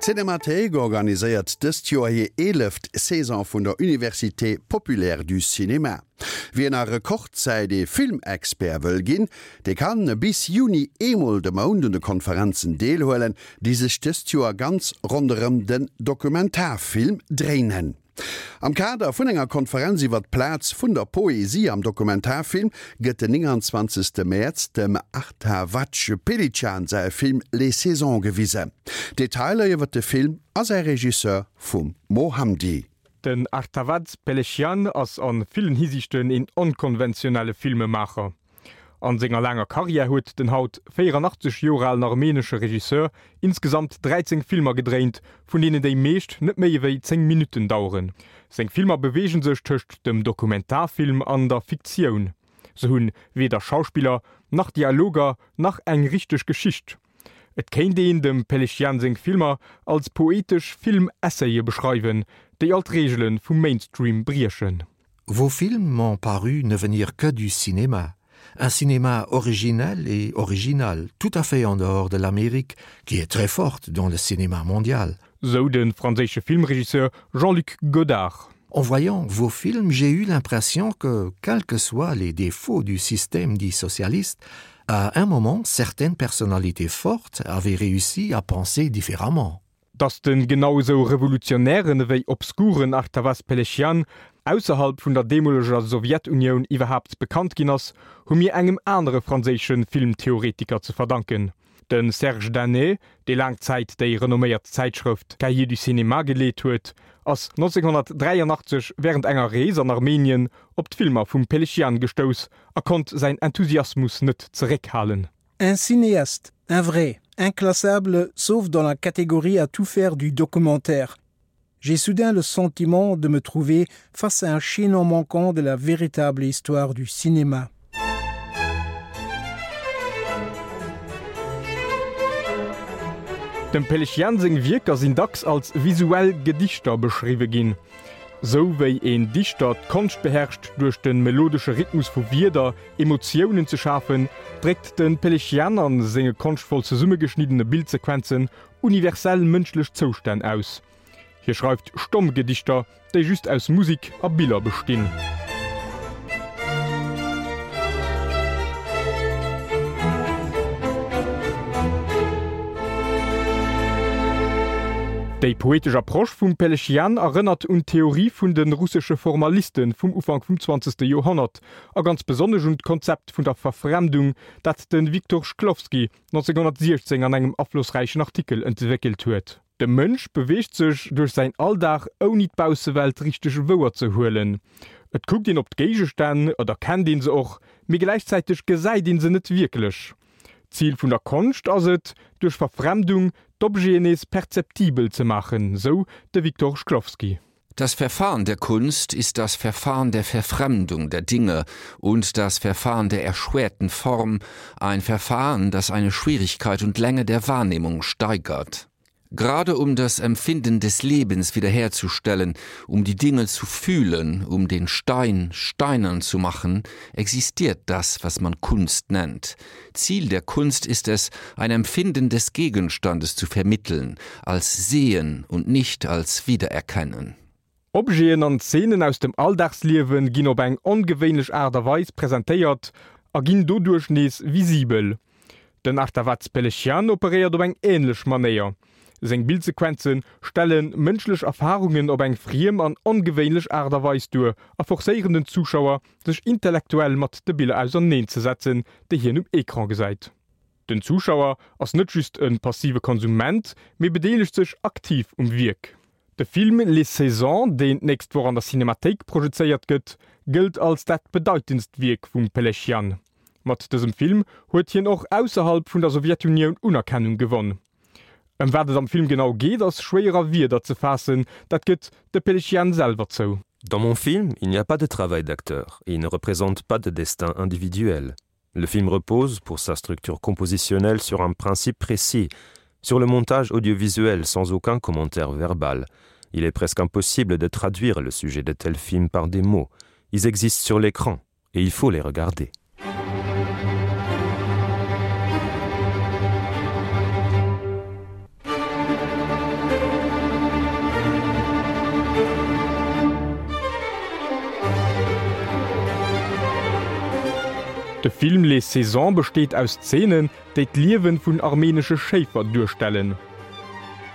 D'Cinémathéik organiséiert dëst Joer hir eeleft Saison vun der Université Populaire du Cinéma. Wien a Rekordzäit ee Filmexpert wëll ginn, dee kann bis Juni eemol de Mount un de Konferenzen deelhuelen, déi sech dëst Joer ganz ronderëm den Dokumentarfilm dréinen. Am Kader vun enger Konferenz iwwer d'Plaz vun der Poesie am Dokumentarfilm gëtt den 29. Mäerz dem Artavazd Pelichyan säi Film Les Saisons gewisen. Detailer iwwer de Film a säi Regisseur vum Mo Hamdi. Den Artavazd Pelechian ass a villen Hisiichten een onkonventionelle Filmemaacher. An senger laanger Karriär huet den haut 84 Joer alen armenesche Regisseur insgesamt 13 Filmer gedréint, vun deenen déi meescht net méi ewéi 10 Minutten daueren. Seng Filmer beweege sech tëscht dem Dokumentarfilm an der Fiktioun. Se hunn weder Schauspiller, nach Dialoger, nach eng richteg Geschicht. Et kéint een dem Pelechian seng Filmer als poetesch Film-Essaye beschreiwen, déi all d'Reegele vum Mainstream briechen. Vos films m'ont paru ne venir que du cinéma, un cinéma originel et original, tout à fait en dehors de l'Amérique, qui est très forte dans le cinéma mondial. Sou de franséische Filmregisseur Jean-Luc Godard. En voyant vos films, j'ai eu l'impression que, quels que soient les défauts du système dit socialiste, à un moment, certaines personnalités fortes avaient réussi à penser différemment. Datt de genau esou revolutionären ewéi obskuren Artavazd Pelechian ausserhalb vun der deemoleger Sowjetunioun iwwerhaapt bekannt ginn ass, hu mir engem anere franséische Filmtheoretiker ze verdanken. De Serge Daney, dee laang Zäit déi renomméiert Zäitschrëft Cahiers du cinéma geleet huet, ass 1983 wärend enger Rees an Armenien op d'Filmer vum Pelechian gestouss a konnt säin Enthusiasmus net zeréckhalen. Un cinéaste, un vrai, inclassable sauf dans la catégorie à tout faire du documentaire. J'ai soudain le sentiment de me trouver face à un chaînon manquant de la véritable histoire du cinéma. Dem Pelechian seng Wierker sinn dacks als visuell Gedichter beschriwwe ginn. Sou wéi een Dichter d'Konscht beherrscht, duerch de melodesche Rhythmus vu Wierder Emotiounen ze schafen, dréckt de Pelechian a senge konschtvoll zesummegeschniddene Bildsequenzen universell mënschlech Zoustänn aus. Hie schreift stomm Gedichter, déi just aus Musik a Biller bestinn. Déi poetesch Approche vum Pelechian erënnert un d'Theorie vun de russesche Formaliste vum Ufank vum zwanzegste Joerhonnert a ganz besonnesch un d'Konzept vun der Verfremdung, dat de Viktor Shklovsky 1916 an engem aflossräichen Artikel entwéckelt huet. De Mënsch beweegt sech duerch säin Alldag ouni d'Baussewelt richteg wouer ze huelen. Et kuckt een op d'Géigestänn, et erkennt een se och, mee gläichzäiteg gesäit een se net wierklech. D'Zil vun der Konscht ass et, duerch Verfremdung d'Objeten nees perzeptibel ze maachen, sou de Viktor Shklovsky. Das Verfahren der Kunst ist das Verfahren der Verfremdung der Dinge und das Verfahren der erschwerten Form, ein Verfahren, das eine Schwierigkeit und Länge der Wahrnehmung steigert. Gerade um das Empfinden des Lebens wiederherzustellen, um die Dinge zu fühlen, um den Stein steinern zu machen, existiert das, was man Kunst nennt. Ziel der Kunst ist es, ein Empfinden des Gegenstandes zu vermitteln, als Sehen und nicht als Wiedererkennen. Objeten an Zeenen aus dem Alldagsliewe ginn op eng ongewéinlech Aart a Weis presentéiert a ginn doduerch nees visibel. Den Artavazd Pelechian operéiert op eng änlech Manéier. Seng Bildsequenze stelle mënschlech Erfarungen op eng friem an ongewéinlech Aart a Weis duer a forcéieren den Zuschauer, sech intellektuell mat de Biller auserneen ze setzen, déi hien um Ecran gesäit. Den Zuschauer ass net just e passive Konsument, mee bedeelegt sech aktiv um Wierk. De Film Les Saisons, deen d'nächst Woch an der Cinemathéik projezéiert gëtt, gëllt als dat bedeitendst Wierk vum Pelechian. Mat dësem Film huet hien och ausserhalb vun der Sowjetunioun Unerkennung gewonn. Ëm wat et am Film genau geet, ass schwéier a Wierder ze faassen, dat gëtt de Pelechian selwer zou. Dans mon film, il n'y a pas de travail d'acteur et il ne représente pas de destin individuel. Le film repose, pour sa structure compositionnelle, sur un principe précis, sur le montage audiovisuel sans aucun commentaire verbal. Il est presque impossible de traduire le sujet de tels films par des mots. Ils existent sur l'écran et il faut les regarder. De Film Les Saisons besteet aus Zeenen, déi d'Liewen vun armenesche Schéifer duerstellen.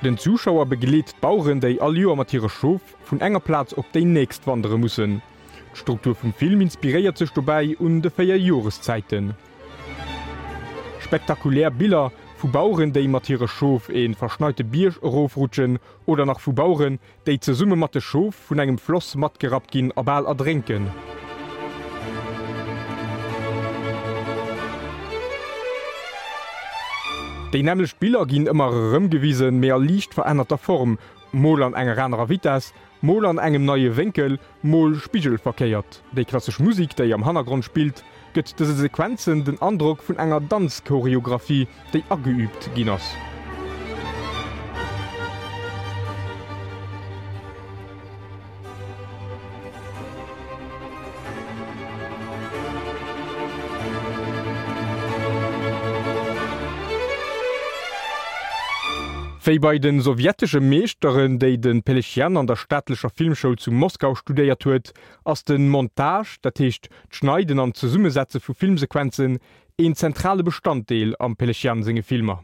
Den Zuschauer begleet d'Baueren, déi all Joer mat hire Schof vun enger Plaz op déi nächst wandere mussen. D'Struktur vum Film inspiréiert sech dobäi un de 4 Joreszäiten. Spektakulär Biller vu Baueren, déi mat hire Schof e verschneite Bierg erofrutschen oder nach vu Baueren, déi zesumme mat de Schof vun engem Floss matgerappt ginn a bal erdrénken. Déi nämmlecht Biller ginn ëmmer erëm gewisen, mee a liicht verännerter Form, mol an enger anerer Vitess, mol an engem neie Wénkel, mol spigelverkéiert. Déi klassesch Musik, déi am Hannergrond spillt, gëtt dëse Sequenzen den Androck vun enger Danzchoreographie, déi ageüübt ginn ass. Wéi bei de sowjetesche Meeschteren, déi de Pelechian an der staatlecher Filmschoul zu Moskau studéiert huet, ass de Montage, dat heescht d'Schneiden an d'Zesummesetze vu Filmsequenzen, een zentrale Bestanddeel am Pelechian senge Filmer.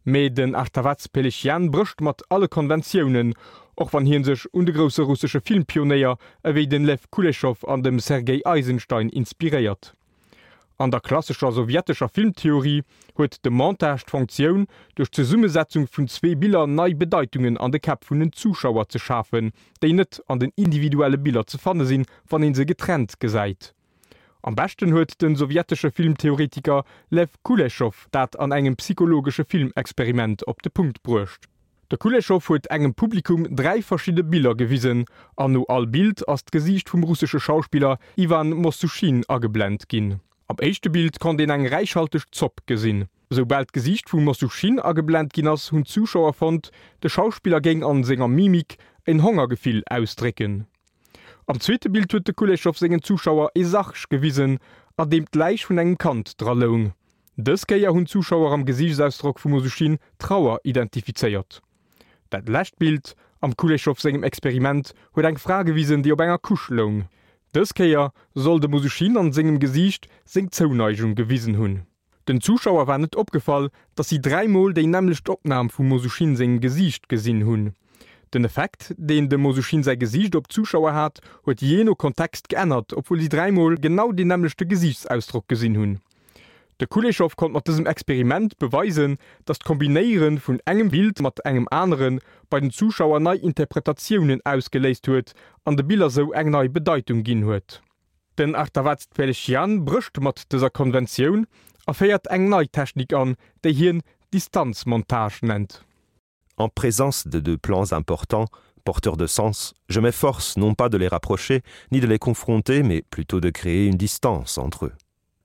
Mee den Artavaz Pelechian brécht mat alle Konventiounen, och wann hie sech un de grousse russesche Filmpionéier ewéi den Lew Kuleschow an dem Sergei Eisenstein inspiréiert. An der klassescher sowjetescher Filmtheorie huet de Montage d'Fonktioun, duerch d'Zesummesetzung vun zwee Biller nei Bedeitungen an de Käpp vun den Zuschauer ze schafen, déi net an den individuelle Biller ze fanne sinn, wann ee se getrennt gesäit. Am beschten huet de sowjetesche Filmtheoretiker Lew Kuleschow dat an engem psychologesche Filmexperiment op de Punkt bruecht. De Kuleschow huet engem Publikum 3 verschidde Biller gewisen an no all Bild ass d'Gesiicht vum russesche Schauspiller Iwan Mossuschin ageblent ginn. Am éischte Bild konnt een eng räichhalteg Zopp gesinn. Soubal d'Gesiicht vum Mossuschin ageblent ginn ass, hunn d'Zuschauer fonnt, de Schauspiller géing an senger Mimik en Hongergefill ausdrécken. Am zweete Bild huet de Kuleschow sengen Zuschauer ee Sarg gewisen, an deem d'Läich vun engem Kand dra loung. Dës Kéier hunn d'Zuschauer am Gesiichtsausdrock vum Osuschin Trauer identifizéiert. Dat lescht Bild am Kuleschow sengem Experiment huet eng Fra gewisen, déi op enger Couche loung. Dës Kéier soll dem Osuschin an sengem Gesiicht seng Zouneigung gewisen hunn. Den Zuschauer war net opgefall, dass si dräimol déi nämmlecht Opnam vum Mosuschin sengem Gesiicht gesinn hunn. Den Effekt, deen dem Mosuschin säi Gesiicht op d'Zuschauer hat, huet jee no Kontext geännert, obwuel si dräimol genau deen nämmlechte Gesiichtsausdrock gesinn hunn. De Kuleschow konnt mat dësem Experiment beweisen, dass d'Kombinéiere vun engem Bild mat engem anere bei den Zuschauer nei Interpretatiounen ausgeléist huet an de Biller sou eng nei Bedeitung ginn huet. Den Artavazd Pelechian brécht mat dëser Konventioun a féiert eng nei Technik an, déi hien Distanzmontage nennt. En présence de deux plans importants, porteurs de sens, je m'efforce non pas de les rapprocher ni de les confronter, mais plutôt de créer une distance entre eux.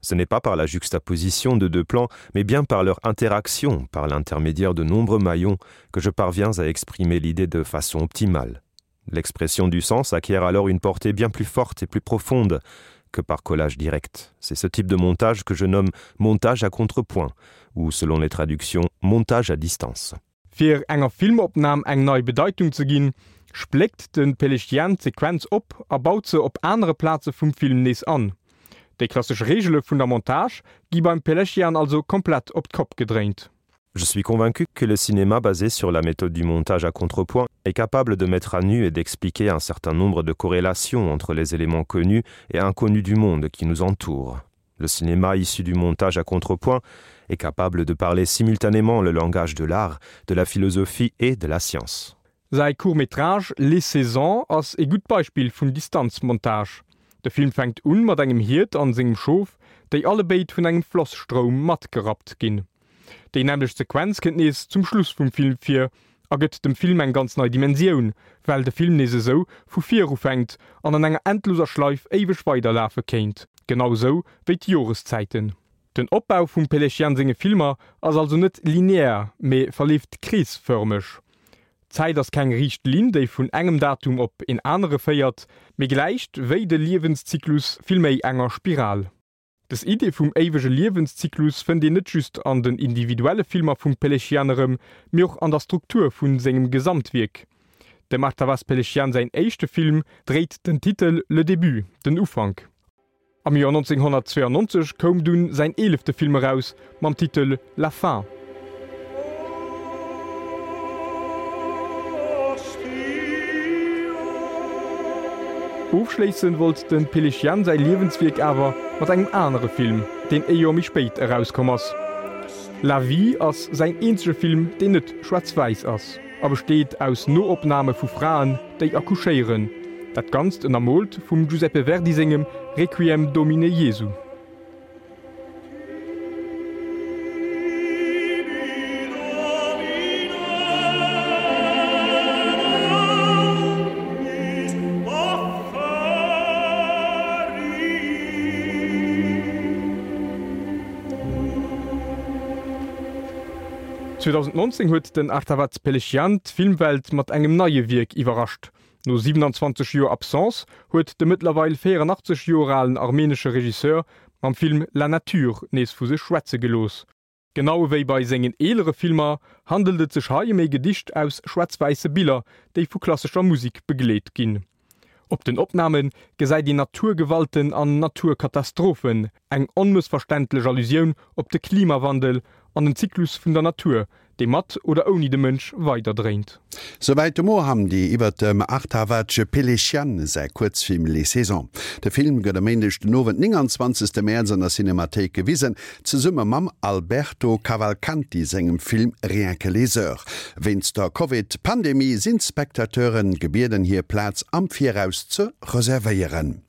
Ce n'est pas par la juxtaposition de deux plans, mais bien par leur interaction, par l'intermédiaire de nombreux maillons, que je parviens à exprimer l'idée de façon optimale. L'expression du sens acquiert alors une portée bien plus forte et plus profonde que par collage direct. C'est ce type de montage que je nomme montage à contrepoint ou selon les traductions montage à distance. Fir enger Filmopnam eng nei Bedeitung ze ginn, spléckt de Pelechian d'Sequenz op a baut se op anere Plaze vum Film nees an. Déi klassesch Reegele vun der Montage gi beim Pelechian also komplett op d'Kopp gedréint. Je suis convaincu que le cinéma basé sur la méthode du montage à contrepoint est capable de mettre à nu et d'expliquer un certain nombre de corrélations entre les éléments connus et inconnus du monde qui nous entoure. Le cinéma issu du montage à contrepoint est capable de parler simultanément le langage de l'art, de la philosophie et de la science. Säi Court-métrage Les Saisons ass ee gutt Beispill vun Distanzmontage. De Film fänkt un mat engem Hiert an sengem Schof, déi allebéid vun engem Flosstroum matgerappt ginn. Déi nämmlecht Sequenz kënnt nees zum Schluss vum Film vir a gëtt dem Film eng ganz nei Dimensioun, well de Film nees esou vu vir ufänkt an an enger endloser Schleif éiweg weiderlafe kéint, genau esou wéi d'Joreszäiten. Den Opbau vum Pelechian senge Filmer ass also net linear, mee verleeft kreesfërmeg. D'Zäit ass keng riicht Linn, déi vun engem Datum op een anere féiert, mee gläicht, wéi de Liewenszyklus, villméi enger Spiral. Dës Idee vum éiwege Liewenszyklus fënnt een net just an den individuelle Filmer vum Pelechian erëm, mee och an der Struktur vu sengem Gesamtwierk. Dem Artavazd Pelechian säin éischte Film dréit den Titel Le Début, Den Ufank. Am Joer 1992 koum dunn säin eelefte Film eraus mam Titel La Fin. Ofschléissen wollt de Péléchian säi Liewenswierk awer mat engem anere Film, deen e Joer méi spéit erauskomm ass. La Vie ass säin eenzege Film, deen net schwaarz-wäiss ass a besteet aus Noopname vu Fraen, déi accouchéieren, dat Ganzt ënnermoolt vum Giuseppe Verdi sengem Requiem Domine Jesu. 2019 huet den Artavazd Pelechian d'Filmwelt mat engem neie Wierk iwwerrascht. No 27 Joer Absence huet de mëttlerweil 84 Joer alen armenesche Regisseur mam Film La Nature nees vu sech schwätze gelooss. Genau ewéi bei sengen eelere Filmer handelt et sech hei ëm ee Gedicht aus schwaarz-wäisse Biller, déi vu klassescher Musek begleet ginn. Op den Opname gesäit een Naturgewalten an Naturkatastrophen, eng onmëssverständlech Allusioun op de Klimawandel an den Zyklus vun der Natur, dee mat oder ouni de Mënsch weiderdréint. Souwäit de Mo Hamdi iwwer dem Artavazd Pelechian säi Kuerzfilm Les Saisons. De Film gëtt e Méindeg den Owend, 29 Mäerz an der Cinemathéik gewisen, zesumme mam Alberto Cavalcanti sengem Film Rien que les heures. Wéinst der Covid-Pandemie sinn d'Spectateure gebieden hir Plaz am Viraus ze reservéieren.